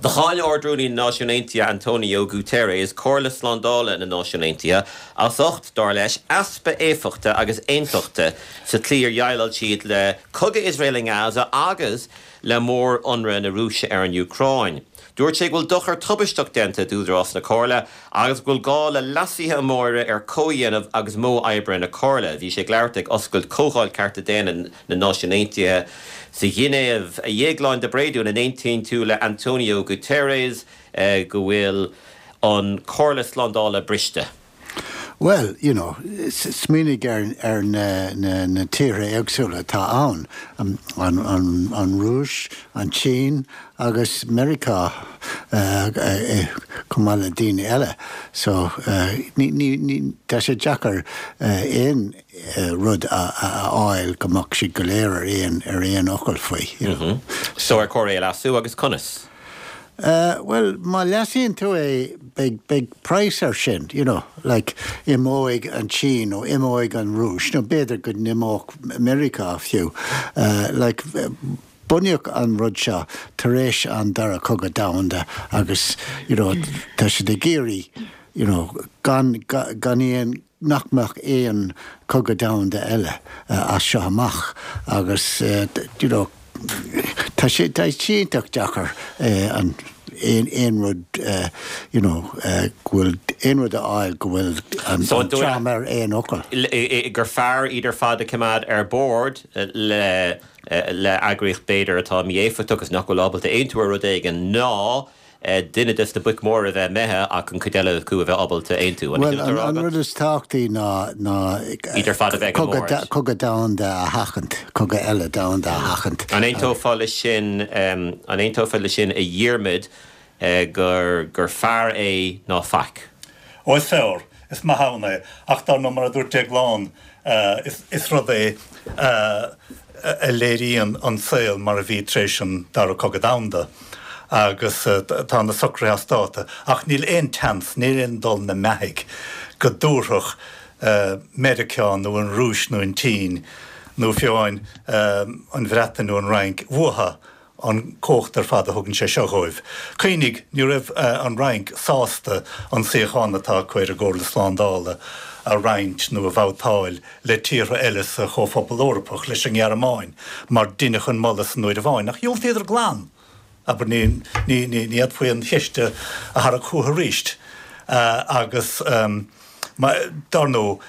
Do cháin Ard-Rúnaí na Náisiún Aontaithe António Guterres Comhairle Slándála na Náisiún Aontaithe as ucht, dar leis, easpa éifeachta agus aontachta sa tslí ar dhéileáil siad le cogadh Iosrael i nGaza agus le mór-ionradh na Rúise ar an Úcráin. Dúirt sé go bhfuil dochar tubaisteach déanta d'údarás na Comhairle agus go bhfuil gá le leasuithe móra ar chomhdhéanamh agus modh oibre na Comhairle. Bhí sé ag labhairt ag oscailt Chomhdháil Cearta Daonna na Náisiún Aontaithe sa Ghinéiv. A Dhéagláin de Bréadún, an aontaíonn tú le António Guterres go bhfuil an Chomhairle Slándála briste? Bhuel, you know, smaoinigh ar na tíortha éagsúla atá ann, an Rúis, an tSín agus Meiriceá chomh maith le daoine eile. So, ní, tá sé deacair aon rud a fháil go mbeadh siad go léir ar aon, ar aon fhocal faoi, you know. So ar chóir é a leasú agus conas? Bhuel, má leasaíonn tú é, beidh, beidh praghas air sin, you know, like, imeoidh an tSín nó imeoidh an Rúis nó b'fhéidir go n-imeodh Meiriceá fiú. Like, bunaíodh an rud seo tar éis an Dara Cogadh Domhanda agus, you know, tá siad ag iarraidh, you know, gan, gan aon, nach mbeadh aon chogadh domhanda eile as seo amach agus you know tá sé tá sé iontach deacair an aon aon rud you know go bhfuil aon rud a fháil go bhfuil an dream ar aon fhocal. gur fearr iad ar fad a choimeád ar bord le le eagraíocht b'fhéidir atá mí-éifeachtach agus nach bhfuil ábalta aontú ar rud éigin ná duine des na boic mhóra a bheith imithe ach an chuid eile acu a bheith ábalta aontú. An é sin atá á rá agat? An rud is tábhachtaí ná ná Iad ar fad a bheith ag an mbord. cogadh domhanda a sheachaint, cogadh eile domhanda a sheachaint. An aontófá leis sin, an aontófá leis sin a Dhiarmaid, gur gur fearr é ná faic? Ó is fearr, is maith ann é, ach dar ndóigh mar a dúirt Déaglán, is rud é a léiríonn an saol mar a bhí tar éis an Dara Cogadh Domhanda agus tá na socruithe as dáta ach níl aon tseans, níl aon dul na mbeathaigh go dtabharfadh Meiriceá nó an Rúis nó an tSín nó fiú amháin an Bhreatain nó an Fhrainc uathu an chumhacht ar fad a thugann sé seo dhóibh. Cuimhnigh, ní raibh an Fhrainc sásta an suíochán atá acu ar an gComhairle Slándála a roinnt nó a bhabhtáil le tíortha eile sa Chomhphobal Eorpach, leis an nGearmáin, mar deineadh an moladh san uair amháin, ach dhiúltaíodar glan! Abair, ní, ní, ní fhéadfaí an cheist a tharrac chucu arís. Agus, dar ndóigh,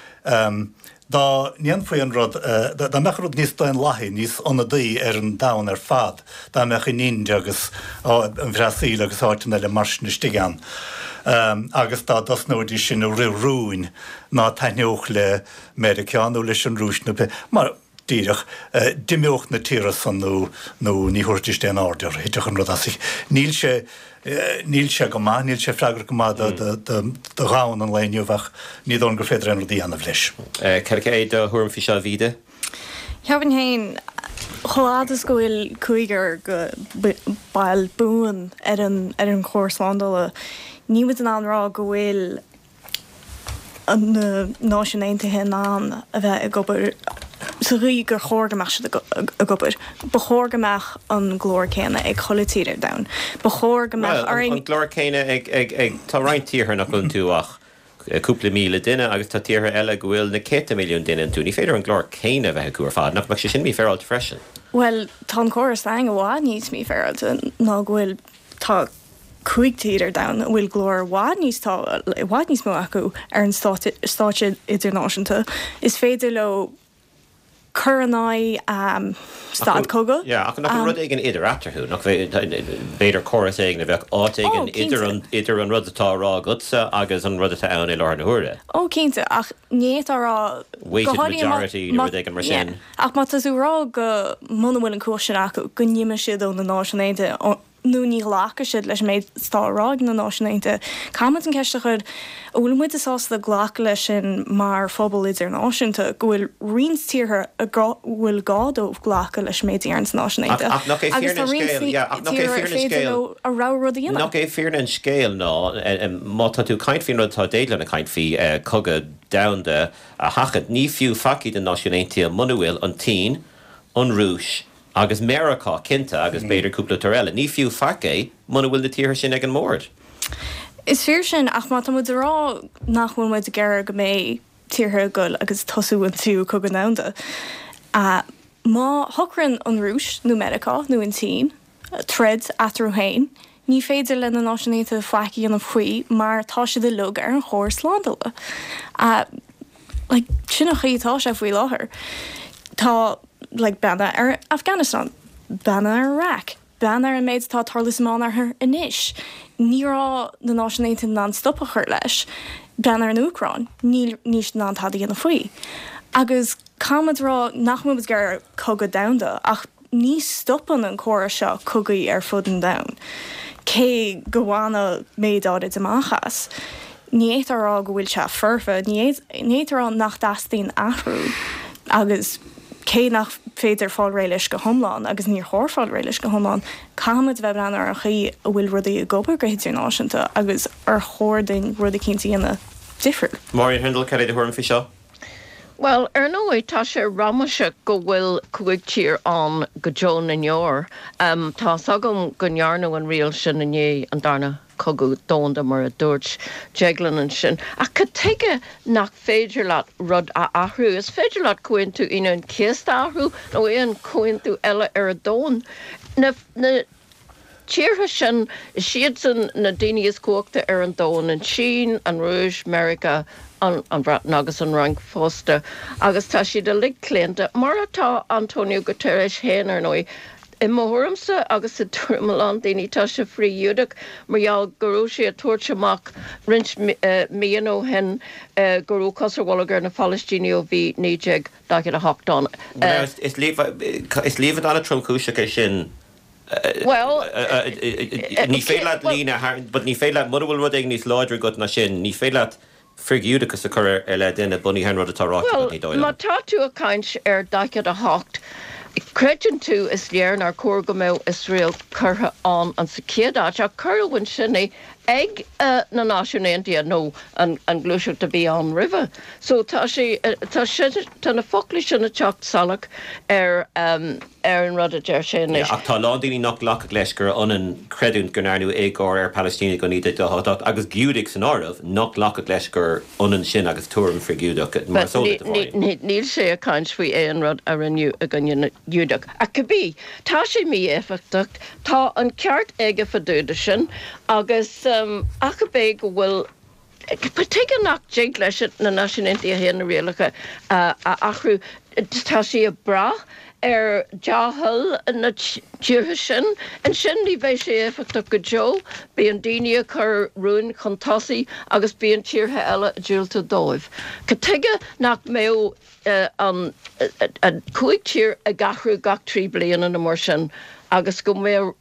Dá ndéanfaí an rud, dá mbeadh an rud níos daonlathaí, níos ionadaí ar an domhan ar fad, dá mbeadh an Ind agus an Bhrasaíl agus áiteanna eile mar sin istigh ann, agus dá dtosnóidís sin ag rith rúin ná taitneodh le Meiriceá nó leis an Rúis nó pé, mar, díreach, d'imeodh na tíortha san nó, nó ní thabharfaidís aon aird orthu, thitfeadh an rud as. Níl sé. Níl sé go maith, níl sé freagrach go maith do dhomhan an lae inniu ach ní dóigh liom gur féidir aon rud a dhéanamh leis. Cad é do thuairim faoi seo, a Mhíde? Cheapfainn féin, chomh fhad is go bhfuil cúigear go baill buan ar an ar an Chomhairle Slándála, níl muid in ann rá go bhfuil na Náisiúin Aontaithe in ann a bheith ag obair sa gcaoi gur chóir go mbeadh siad ag obair. Ba chóir go mbeadh an glór céanna ag chuile tír ar domhan. Ba chóir go mbeadh orainn. Bhuel, an glór céanna ag, ag, ag, tá roinnt tíortha nach bhfuil iontu ach cúpla míle duine agus tá tíortha eile go bhfuil na céadta milliún duine iontu. Ní féidir an glór céanna a bheith acu ar fad. Nach mbeadh sé sin mífhéaráilte freisin? Bhuel, tá an córas againn i bhfad níos mífhéaráilte ná go bhfuil, tá 5 tír ar domhan a bhfuil glór i bhfad níos tá i bhfad níos mó acu ar an stáitse idirnáisiúnta. Is féidir leo cur in aghaidh stad cogaidh. Yeah, ach nach bhfuil rud éigin idir eatarthu? Nach b'fhéidir córas éigin a bheadh áit éigin idir an idir an rud atá á rá agatsa agus an rud atá ann i láthair na huaire? Ó, cinnte, ach ní fhéadfá a rá Weighted majority nó rud éigin mar sin. Ach má tá tú ag rá go muna bhfuil an cumhacht sin acu, go n-imeoidh siad ó na Náisiúin Aontaithe, nó ní ghlacfaidh siad leis an méid atá á rá ag na Náisiúin Aontaithe. Caithfimid an ceist a chur, an bhfuil muide sásta glacadh leis sin mar phobal idirnáisiúnta, go bhfuil roinnt tíortha a bhfuil gá dóibh glacadh leis an méid a deireann na Náisiúin Aontaithe, Ach nach é agus tá fírinne an roinnt scéil, yeah, ach nach é tíortha ar fírinne an féidir scéil, leo a rogha rud a dhéanamh. nach é fírinne an scéil ná, má tá tú ag caint faoin rud atá Déaglán ag caint faoi, cogadh domhanda a sheachaint, ní fiú faic iad na Náisiúin Aontaithe muna bhfuil an tSín, an Rúis. Agus Meiriceá, cinnte, agus b'fhéidir cúpla tír eile. Ní fiú faic é muna bhfuil na tíortha sin ag an mbord. Is fíor sin, ach má tá muid ag rá nach bhfuil muid ag iarraidh go mbeidh tíortha ag goil agus tosú an tríú cogadh domhanda, má shocraíonn an Rúis nó Meiriceá nó an tSín troid eatarthu féin, ní féidir le na Náisiúin Aontaithe faic a dhéanamh faoi mar tá siad uilig ar an Chomhar Slándála. Like, sin an chaoi atá sé faoi láthair. Tá, like, breathnaigh ar Afghanistan, breathnaigh ar Iraq, breathnaigh ar an méid atá ag tarlú sa Meánoirthear anois. Ní raibh na Náisiúin Aontaithe in ann stop a chur leis. Breathnaigh ar an Úcráin, níl, níl siad in ann tada a dhéanamh faoi. Agus caithfidh muid a rá nach bhfuil muid ag iarraidh cogadh domhanda ach ní stopann an córas seo cogaí ar fud an domhain, cé go bhaineadh méid áirid amach as. Ní fhéadfá a rá go bhfuil sé foirfe, ní fhéadfá a rá nach dteastaíonn athrú agus cé nach féidir fáil réidh leis go hiomlán, agus níor chóir fáil réidh leis go hiomlán, caithfidh muid a bheith ag breathnú ar an chaoi a bhfuil rudaí ag obair go hidirnáisiúnta agus ar chóir dúinn rud eicínt a dhéanamh difriúil. Máirín Hurndall, cad é do thuairim faoi seo? Bhuel, ar ndóigh, tá sé ramaseach go bhfuil 5 tír ann go deo na ndeor. Tá's agam go ndearnadh an riail sin i ndiaidh an Darna Cogadh Domhanda, mar a dúirt Deaglán ansin. Ach cad tuige nach féidir leat rud a athrú? Is féidir leat Comhaontú Aoine an Chéasta a athrú, nó aon chomhaontú eile ar an domhan. Na. tíortha sin, is iadsan na daoine is cumhachta ar an domhan, an tSín, an Rúis, Meiriceá, an Bhreatain agus an Fhrainc fosta, agus tá siad uilig claonta, mar atá António Guterres féin, ar ndóigh. I mo thuairimse, agus i dtuairim a lán daoine, tá sé frith-Ghiúdach mar gheall go raibh sé ag tabhairt amach roinnt míonna ó shin go raibh cos ar bholg ar na Palaistínigh ó bhí 1948 ann. Is líomhain an-tromchúiseach é sin. Bhuel, ní féidir leat líne a tharraingt, but ní féidir leat, mura bhfuil rud éigin níos láidre agat ná sin, ní féidir leat frith-Ghiúdachas a chur i leith duine bunaithe ar an rud atá ráite agat, ní dóigh liom. Bhuel, má tá tú ag caint ar 48, creideann tú, is léir nár chóir go mbeadh Iosrael curtha ann an sa chéad áit, ach cuireadh ansin é ag na Náisiúin Aontaithe nó an ghluaiseacht a bhí ann roimhe. So tá sé, tá sé, tá na foclaí sin ag teacht salach ar. ar an rud a deir sé anois. Ach tá a lán daoine nach nglacfadh leis gur ionann creidiúint go ndearnadh éagóir ar Phalaistínigh ó 1948, agus Giúdaigh san áireamh, nach nglacfadh leis gur ionann sin agus tuairim frith-Ghiúdach, mar is eol duit, a Mháirín. Níl sé ag caint faoi aon rud a rinneadh i gcoinne na nGiúdach. Ach cibé, tá sé mí-éifeachtach, tá an ceart aige fá dtaobh de sin, agus ach ab é go bhfuil Tuige nach dtig leis na Náisiúin Aontaithe féin na rialacha a athrú? Tá sí ag brath ar dea-thoil na tíortha sin. Ansin ní bheidh sé éifeachtach go deo. Bíonn daoine ag cur rúin chun tosaigh agus bíonn tíortha eile ag diúltú dóibh. Cad tuige nach mbeadh an 5 tír ag athrú gach 3 bliana nó mar sin agus go mbeadh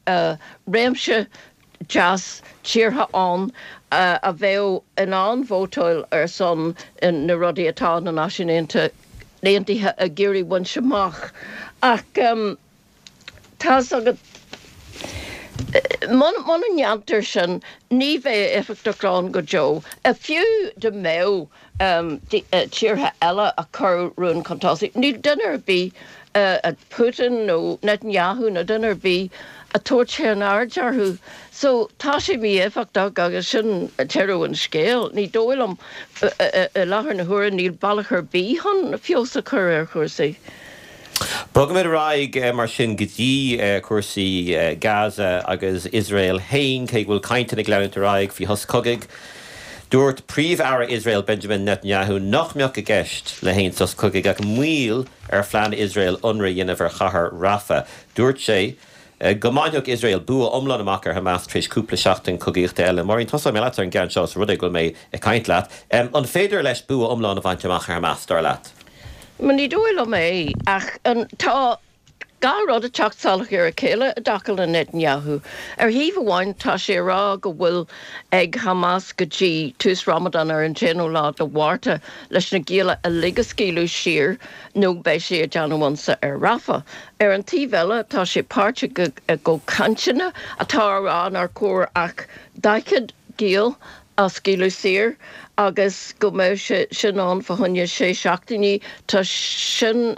réimse deas tíortha ann a bheadh in ann vótáil ar son na rudaí atá na Náisiúin Aontaithe ag iarraidh bhaint amach. Ach tá's agat, muna ndéantar sin, ní bheidh éifeachtacht ann go deo. Fiú dá mbeadh tíortha eile ag cur rún chun tosaigh. Níl duine ar bith, Putin nó Netanyahu nó duine ar bith, ag tabhairt aon aird orthu. So tá sé mí-éifeachtach agus sin deireadh an scéil. Ní dóigh liom, i láthair na huaire, níl bealach ar bith chun feabhas a chur ar chúrsaí. Bogfaimid ar aghaidh mar sin go dtí cúrsaí Gaza agus Iosrael féin, cé go bhfuil cainteanna ag leanúint ar aghaidh faoi shos cogaidh. Dúirt Príomh-Aire Iosrael Benjamin Netanyahu nach mbeadh i gceist le haon sos cogaidh ach moill ar phlean Iosrael ionradh a dhéanamh ar chathair Rafah. Dúirt sé go mbainfeadh Iosrael bua iomlán amach ar Hamas tar éis cúpla seachtain cogaíochta eile. Máirín, tosóidh mé leat ar an gceann seo, os rud é go bhfuil mé ag caint leat. An féidir leis bua iomlán a bhaint amach ar Hamas, dar leat? Ní dóigh liom é, ach tá gach rud ag teacht salach ar a chéile i dtaca le Netanyahu. Ar thaobh amháin, tá sé ag rá go bhfuil ag Hamas go dtí tús Ramadan ar an t-aonú lá de Mhárta leis na gialla uilig a scaoileadh saor nó beidh sé ag déanamh ionsaí ar Rafah. Ar an taobh eile, tá sé páirteach i gcomhchainteanna atá á rá nár chóir ach 40 giall a scaoileadh saor agus go mbeadh sé sin ann fá choinne sé seachtainí. Tá sin.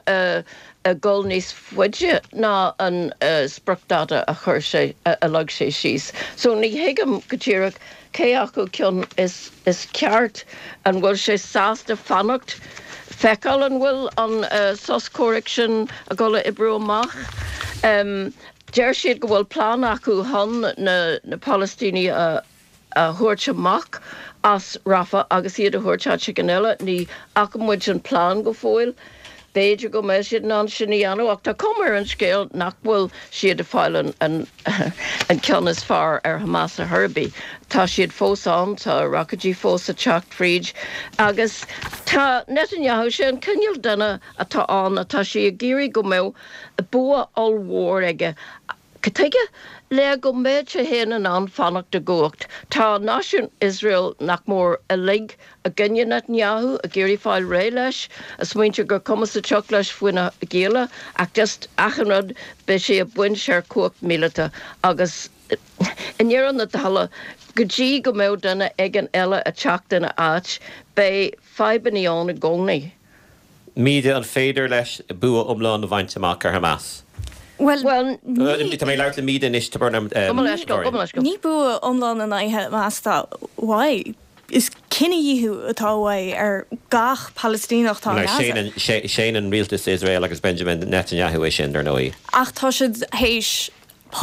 ag dul níos faide ná an spriocdáta a chuir sé, a leag sé síos. So ní thuigim go díreach cé acu ceann is is ceart. An bhfuil sé sásta fanacht, feiceáil an bhfuil an sos comhraic sin ag dul a oibriú amach? Deir siad go bhfuil plean acu chun na Palaistínigh a a thabhairt amach as Rafah agus iad a thabhairt áit éigin eile. Ní fhaca muid an plean go fóill. B'fhéidir go mbeidh siad in ann sin a dhéanamh ach tá cuma ar an scéal nach bhfuil siad ag fáil an an ceann is fearr ar Hamas ar chor ar bith. Tá siad fós ann, tá roicéidí fós ag teacht fríd agus tá Netanyahu, sé an cineál duine atá ann atá sé ag iarraidh go mbeadh bua ollmhór aige Cad tuige? Le go mbeadh sé féin in ann fanacht i gcumhacht. Tá náisiún Iosrael nach mór uilig i gcoinne Netanyahu, ag iarraidh fáil réidh leis, ag smaointiú gur cuma sa tsioc leis faoi na gialla, ach just achan rud, beidh sé ag baint ar chumhacht míleata agus i ndeireadh na dála, go dtí go mbeadh duine éigin eile ag teacht ina áit, beidh fadhbanna ann i gcónaí. Míde, an féidir leis bua iomlán a bhaint amach ar Hamas? Bhuel, ní. Tá mé ag labhairt le Míde anois, tá brón orm, Gabh mo leithscéal, gabh mo leithscéal. Ní bua iomlán in aghaidh Hamas atá uaidh. Is cinedhíothú atá uaidh ar gach Palaistíneach atá i nGaza. Séanann rialtas Iosrael agus Benjamin Netanyahu é sin, dar ndóigh. Ach tá siad théis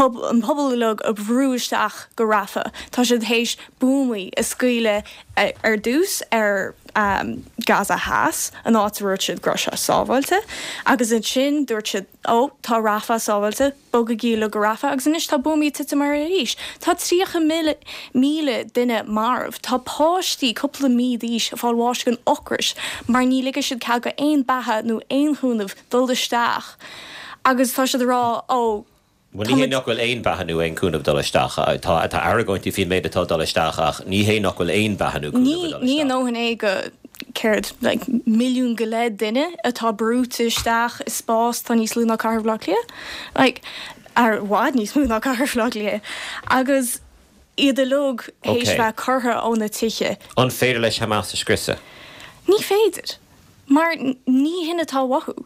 an pobal uilig a bhrú isteach go Rafah. Tá siad théis buamaí a scaoileadh ar dtús ar Gaza Theas, an áit a dúirt siad go raibh sé sábháilte, agus ansin dúirt siad, ó, tá Rafah sábháilte, bogaigí uilig go Rafah, agus anois tá buamaí ag titim air arís. Tá 30,000 duine marbh. Tá páistí cúpla mí d'aois ag fáil bháis den ocras mar ní ligfidh siad cead go aon beatha nó aon chúnamh dul isteach agus tá siad ag rá, ó, Bhuel, ní hé nach bhfuil aon bheatha nó aon chúnamh ag dul isteach. Tá tá argóintí faoin méid atá ag dul isteach ach ní hé nach bhfuil aon bheatha nó cúnamh ag dul Ní a isteach. ndóthain é go, céard, like, milliún go leith duine atá brúite isteach i spás atá níos lú ná Cathair Bhaile Átha Cliath. Like, ar i bhfad níos mó ná Cathair Bhaile Átha Cliath. Agus iad uilig théis Ok. bheith curtha óna tithe. An féidir leis Hamas a scriosadh? Ní féidir. Mar ní hin atá uathu.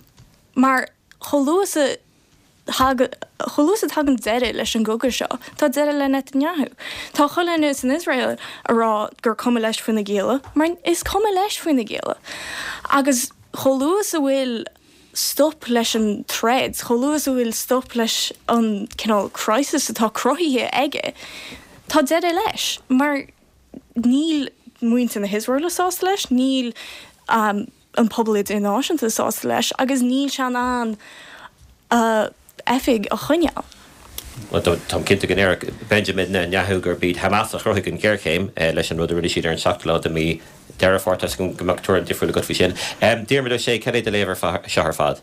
Mar chomh luath is a thagann, chomh luath is a thagann deireadh leis an gcogadh seo, tá deireadh le Netanyahu. Tá chuile dhuine san Iosrael a rá gur cuma leis faoi na gialla, mar is cuma leis faoi na gialla. Agus chomh luath is a bhfuil stop leis an troid, chomh luath is a bhfuil stop leis an cineál crisis atá cruthaithe aige, tá deireadh leis. Mar níl muintir na hIosraeile sásta leis, níl an pobal idirnáisiúnta sásta leis agus níl sé in ann a oifig a choinneáil. Bhuel, táim cinnte go ndéarfadh Benjamin Netanyahu gurb iad Hamas a chruthaigh an ghéarchéim leis an rud a rinne siad ar an seachtú lá de mhí Deireadh Fómhair. Tá 'fhios agam go mbeadh tuairim difriúil agat faoi sin. Diarmuid Ó Sé, cad é do léamh air seo ar fad?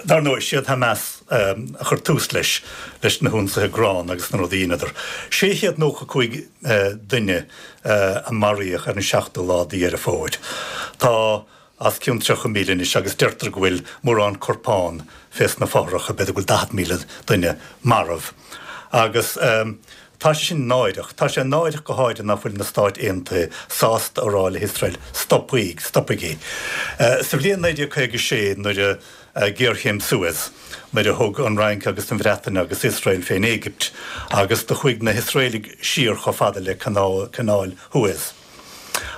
Dar ndóigh, siad Hamas a chuir tús leis, leis na hionsaithe gránna agus na rudaí a dheineadar. 695 duine a maraíodh ar an seachtú lá de Dheireadh Fómhair. Tá os cionn 30,000 anois agus deirtear go bhfuil mórán corpán fés na fothracha, b'fhéidir go bhfuil 40,000 duine marbh. Agus tá sé sin náireach. Tá sé náireach go háirithe ná fuil na Stáit Aontaithe sásta a rá le hIosrael, stopaigí, stopaigí. Sa bhliain 1956 nuair a géarchéim Suez, nuair a thug an Fhrainc agus an Bhreatain agus Iosrael fén Éigipt agus do chuaigh na hIosraelaigh siar chomh fada le Canáil Shuez.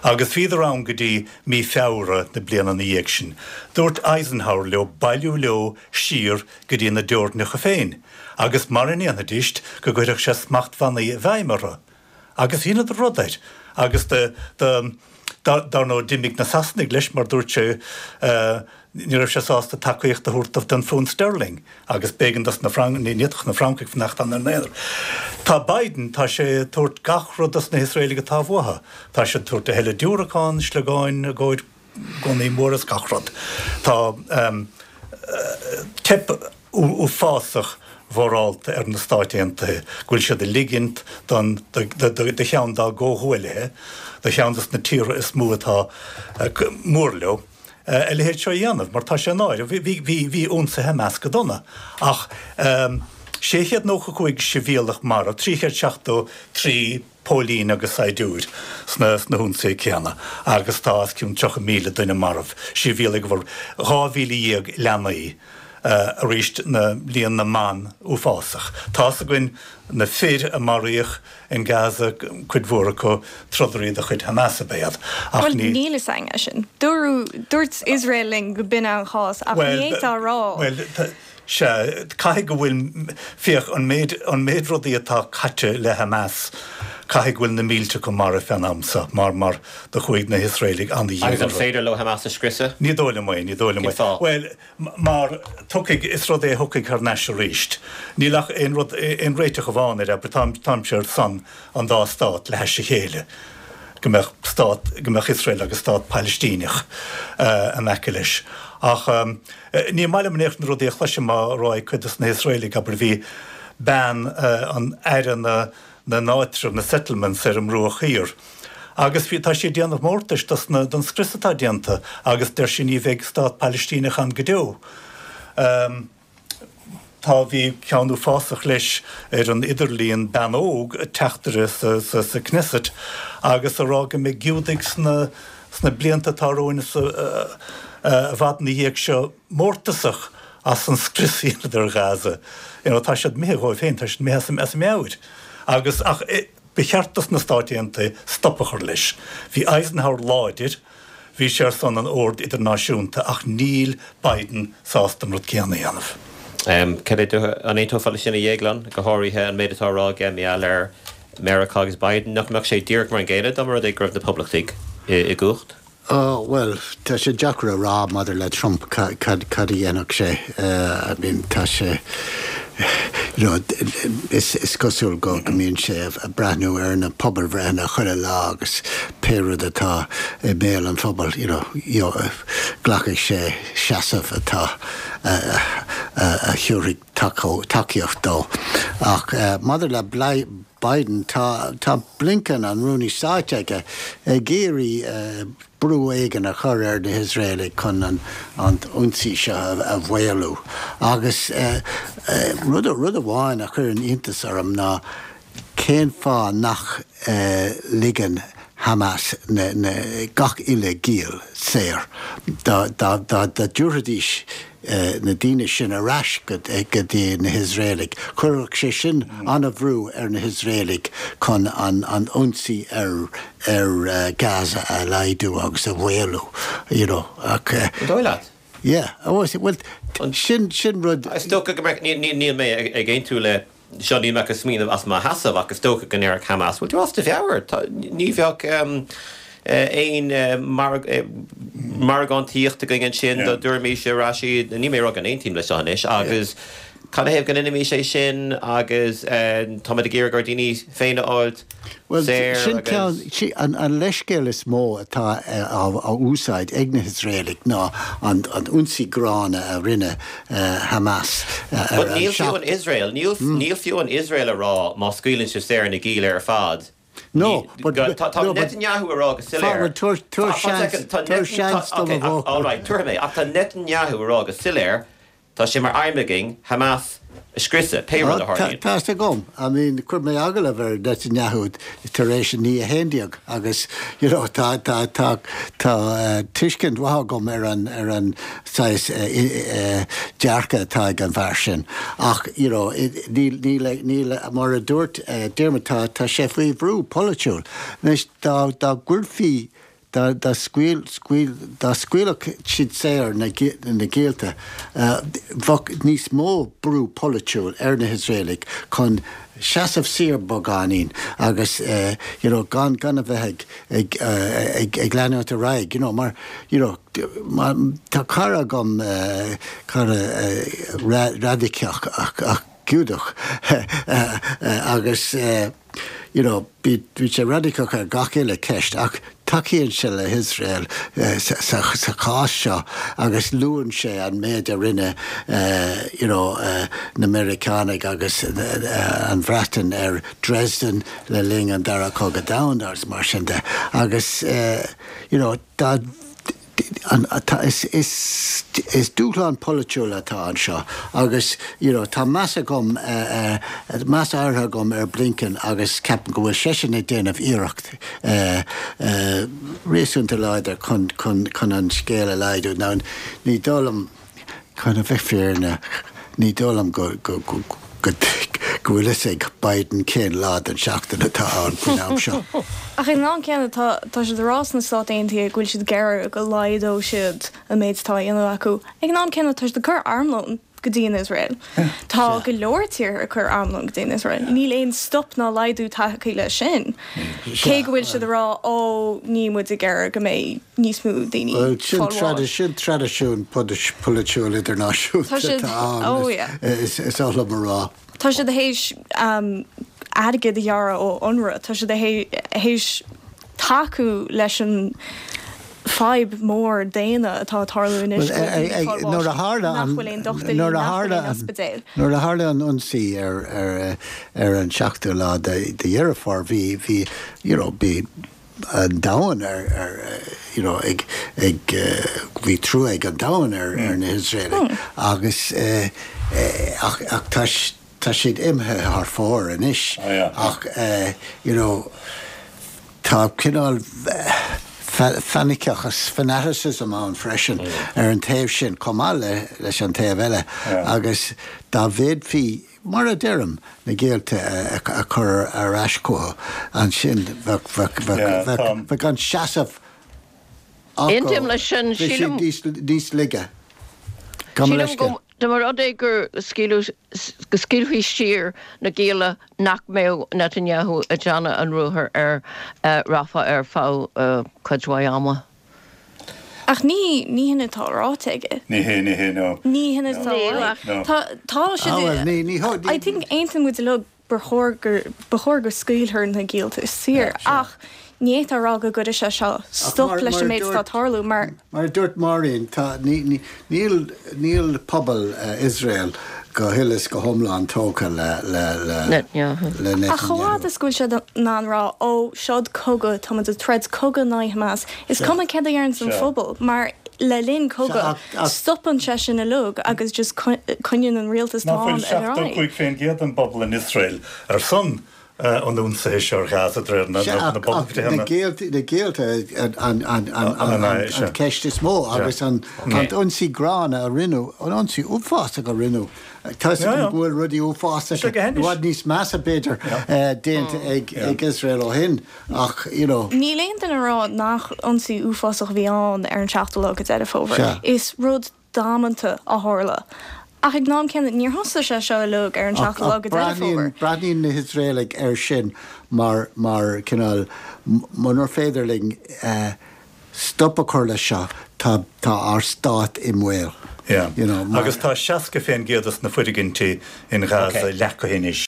Agus bhíodar ann go dtí mí Feabhra na bliana ina dhiaidh sin. Dúirt Eisenhower leo bailiú leo siar go dtí na dteorainneacha féin agus mara ndéanfaidíst go gcuirfeadh sé smachtbhannaí i bhfeidhm orthu. Agus dheineadar rud air. Agus do, do, dar ndóigh d'imigh na Sasanaigh leis mar dúirt sé ní raibh sé sásta tacaíocht a thabhairt don phunt sterling agus b'éigean dos na Franc, ní fhéadfadh na Francaigh fanacht ann ar a n-aonar. Tá Biden, tá sé ag tabhairt gach rud dos na hIosraelaigh atá uathu. Tá sé ag tabhairt a thuilleadh diúracán, sliogáin i gcomhair gunnaí móra is gach rud. Tá teip uafásach mhorálta ar na Stáit Aontaithe go bhfuil siad ag ligint don do cheann dá gcomhghuaillithe, do cheann dos na tíortha is mó atá mór leo, a leithéid seo a dhéanamh, mar tá sé náireach. Bhí ionsaithe Hamas go dona ach 695 sibhialtach marbh, 373 póilín agus saighdiúir sna hionsaithe céanna agus tá os cionn 30,000 duine marbh, sibhialaigh, 12,000 leanaí. Arís na líon na mban uafásach. Tá's againn na fir a maraíodh in Gaza, cuid mhór acu trodairí de chuid Hamas ab ea iad. Ach Bhuel, ní. níl fhios againn é sin. Dúradh, dúirt Iosrael linn go b'in an chás, ach ní fhéadfá a rá. Bhuel, sea, caithfidh go bhfuil, féach, an méid, an méid rudaí atá caite le Hamas, caithfidh go bhfuil na mílte acu marbh fén am seo, mar, mar do chuaigh na hIosraelaigh ana-dhian Agus an orthu. féidir leo Hamas a scriosadh? Ní dóigh liom é, ní dóigh liom é. Cén fáth? Bhuel, Mar tiocfaidh, is rud é a thiocfaidh thar n-ais arís. Níl ach aon rud, aon réiteach amháin air, abair, táim, táimse ar son an dá stát le hais a chéile, go mbeadh stát, go mbeadh Iosrael agus stát Pailistíneach in aice leis. Ach ní maith liom in aon chor na rudaí a chloisim á rá ag cuid dos na hIosraelaigh, abair, bhí bean an aire na, na n-áitreabh, na settlements, ar an mBruach Thiar. Agus bhí, tá sí ag déanamh mórtais dos na, don scrios atá déanta agus deir sí ní bheidh stát Pailistíneach ann go deo. Tá, bhí ceann uafásach leis ar an idirlíon, bean óg, teachtaire sa, sa, sa Knesset agus a rá go mbeidh Giúdaigh sna, sna blianta atá romhainn is i bhfad ina dhiaidh seo mórtasach as an scrios a dheineadar ar Ghaza. You know, tá siad imithe dhóibh féin, tá siad imithe as a, as a meabhair. Agus, ach, Ba cheart dos na Stáit Aontaithe stop a chur leis. Bhí Eisenhower láidir, bhí sé ar son an oird idirnáisiúnta ach níl Biden sásta an rud céanna a dhéanamh. Cad é do, an aontófá leis sin a Dhéagláin, go háirithe an méid atá á rá aige mar gheall ar Meiriceá agus Biden? Nach mbeadh sé díreach mar an gcéanna dá mba rud é go raibh na Poblachtaigh i gcumhacht? Ó, bhuel, tá sé deacair a rá maidir le Trump cad a dhéanfadh sé. I mean, tá sé, you know, is cosúil go mbíonn sé ag breathnú ar na pobalbhreitheanna chuile lá agus pé rud atá i mbéal an phobail, you know, glacfaidh sé seasamh atá, a thabharfaidh tacaíocht dó. Ach maidir le Biden, tá tá Blinken, an Rúnaí Stáit aige, ag iarraidh brú éigin a chur ar na hIosraelaigh chun an an t-ionsaí seo a mhaolú. Agus rud rud amháin a chuireann iontas orm ná cén fáth nach ligeann Hamas na na gach uile giall saor. Dá dá dá dtabharfaidís na daoine sin ar ais go dtí na hIosraelaigh. Chuirfeadh sé sin an-bhrú ar na hIosraelaigh chun an ionsaí ar ar Gaza a laghdú agus a mhaolú, you know, ach. An dóigh leat? Yeah, bhuel, sin sin rud. Is dócha go mbeadh, níl mé ag aontú le seo, níl mé ach ag smaoineamh as mo sheasamh ach is dócha go ndéarfadh Hamas, bhfuil tú as do mheabhair? Ní bheadh aon margántaíocht againn ansin dá dtabharfaimis ar ais iad, níl mé ag rá go n-aontaím leis seo anois, agus canathaobh go ndéanfaimis é sin agus táimid ag iarraidh ár ndaoine féin a fháilt Bhuel, sin ceann, an leithscéal is mó atá á úsáid ag na hIosraelaigh ná an ionsaí gránna a rinne Hamas ar an. But níl fiú an Iosrael, níl fiú an Iosrael a rá má scaoileann sibh saor na gialla ar fad, No, but, tá Netanyahu a rá go soiléir. Tabhair seans, tabhair seans dom a bhfocal. All right, tabharfaidh mé, ach tá Netanyahu a rá go soiléir Tá sé mar aidhm againn Hamas a scriosadh, pé rud a tharlaíonn. Tá 'fhios agam. I mean, chuir mé agallamh ar Netanyahu tar éis an 9/11 agus, you know, tá, tá, tá, tá tuiscint mhaith agam ar an, ar an saghas dearcadh atá ag an bhfear sin. Ach, you know, níl, níl, níl, mar a dúirt Diarmuid, tá, tá sé faoi bhrú polaitiúil. Anois, dá, dá gcuirfí Dá scaoilfeadh siad saor na giallta, bheadh níos mó brú polaitiúil ar na hIosraelaigh chun seasamh siar beagáinín agus you know gan gan a bheith ag ag ag leanúint ar aghaidh you know mar you know tá cara agam cara raidiceach ach Giúdach agus you know bíonn sé raidiceach ar gach uile ceist ach tacaíonn sé le hIosrael sa chás seo agus luann sé an méid a rinne you know na Meiriceánaigh agus an Bhreatain ar Dresden le linn an Dara Cogadh Domhanda agus mar sin de agus you know dá Is dúshlán polaitiúil atá anseo agus you know tá meas agam, meas áirithe agam ar Blinken agus ceapaim go bhfuil seisean ag déanamh iarracht réasúnta láidir chun chun chun an scéal a laghdú. Now ní dóigh liom. Chun a bheith fírinneach, ní dóigh liom go go go go bhfuil fhios ag Biden cén lá den tseachtain atá ann faoin am seo. Ach ag an am céanna, tá tá siad ag rá sna Stáit Aontaithe go bhfuil siad ag iarraidh go laghdódh siad an méid atá á dhéanamh acu. Ag an am céanna, tá siad ag cur armlón go dtí an Iosrael. Tá go leor tíortha ag cur armlón go dtí an Iosrael. Níl aon stop ná laghdú tagtha leis sin. Cé go bhfuil siad ag rá, ó, níl muid ag iarraidh go mbeidh níos mó daoine Bhuel, sin fáil bháis. sin traidisiún polaitiúil idirnáisiúnta Tá siad, atá ann, oh yeah. is oth liom a rá. Tá siad théis airgead a ghearradh ó UNRWA, tá siad théis tacú leis an fadhb mór daonna atá ag tarlú anois go bhfuil daoine ag fáil bháis nach bhfuil aon dochtúirí, nach bhfuil aon ospidéil. Nuair a tharla an ionsaí ar ar an seachtú lá de Dheireadh Fómhair bhí bhí you know bhí an domhan ar ar you know ag ag bhí trua ag an domhan ar ar na hIosraelaigh agus ach ach tá tá siad imithe thar fóir anois ach you know tá cineál fanaiticeachas, fanaticism ann freisin ar an taobh sin chomh maith le leis an taobh eile agus dá bhféadfaí, mar a deirim, na géillte a chur ar ais chucu ansin bheadh bheadh bheadh bheadh an seasamh acu, Aontaím leis sin. bheadh siad níos níos laige. Gabh mo Sílim leithscéal. go dá mba rud é gur scaoileadh go scaoilfí saor na gialla nach mbeadh Netanyahu ag déanamh an ruathair ar Rafah ar feadh cuid mhaith ama. Ach ní ní hin atá ráite aige. Ní hé, ní hé, no. Ní hin atá Níl ach. No. Tá tá siad Ah bhuel, ní ní ní. I think aontaíonn muid uilig gur chóir gur ba chóir go scaoilfear na giallta saor ach ní fhéadfá a rá go gcuirfidh sé seo stop leis an méid atá ag tarlú mar Mar a dúirt Máirín, tá, ní, ní, níl, níl pobal Iosrael go huile is go hiomlán tógtha le, le, le, Netanyahu. le Ach chomh Netanyahu. fhad is go bhfuil siad in ann rá, ó, seod cogadh, tá muid ag troid cogadh in aghaidh Hamas, is cuma céard a deireanns an phobal, mar le linn cogadh, stopann sé sin uilig agus just coinníonn an rialtas Nach atá bhfuil ann ar aghaidh. 75% den bpobal in Iosrael ar son an ionsaithe seo ar Ghaza de réir na pobalbhreitheanna. Na géillte an cheist is mó agus an t-ionsaí gránna a rinneadh, an ionsaí uafásach a rinneadh. Tá 'fhios agam go bhfuil rudaí uafásacha, i bhfad níos measa b'fhéidir, déanta ag Iosrael ó shin ach, you know. Níl aon duine ag rá nach ionsaí uafásach a bhí ann ar an seachtú lá de Deireadh Fómhair. Is rud damanta a tharla. Ach ag an am céanna, níor thosaigh sé seo uilig ar an seachtú lá de Deireadh Fómhair. Breathnaíonn na hIosraelaigh air sin mar, mar cineál, munar féidir linn stop a chur leis seo, tá, tá ár stát i mbaol. Yeah. You know, mar. Agus tá 60% des na foirgintí in Gaza leacaithe anois.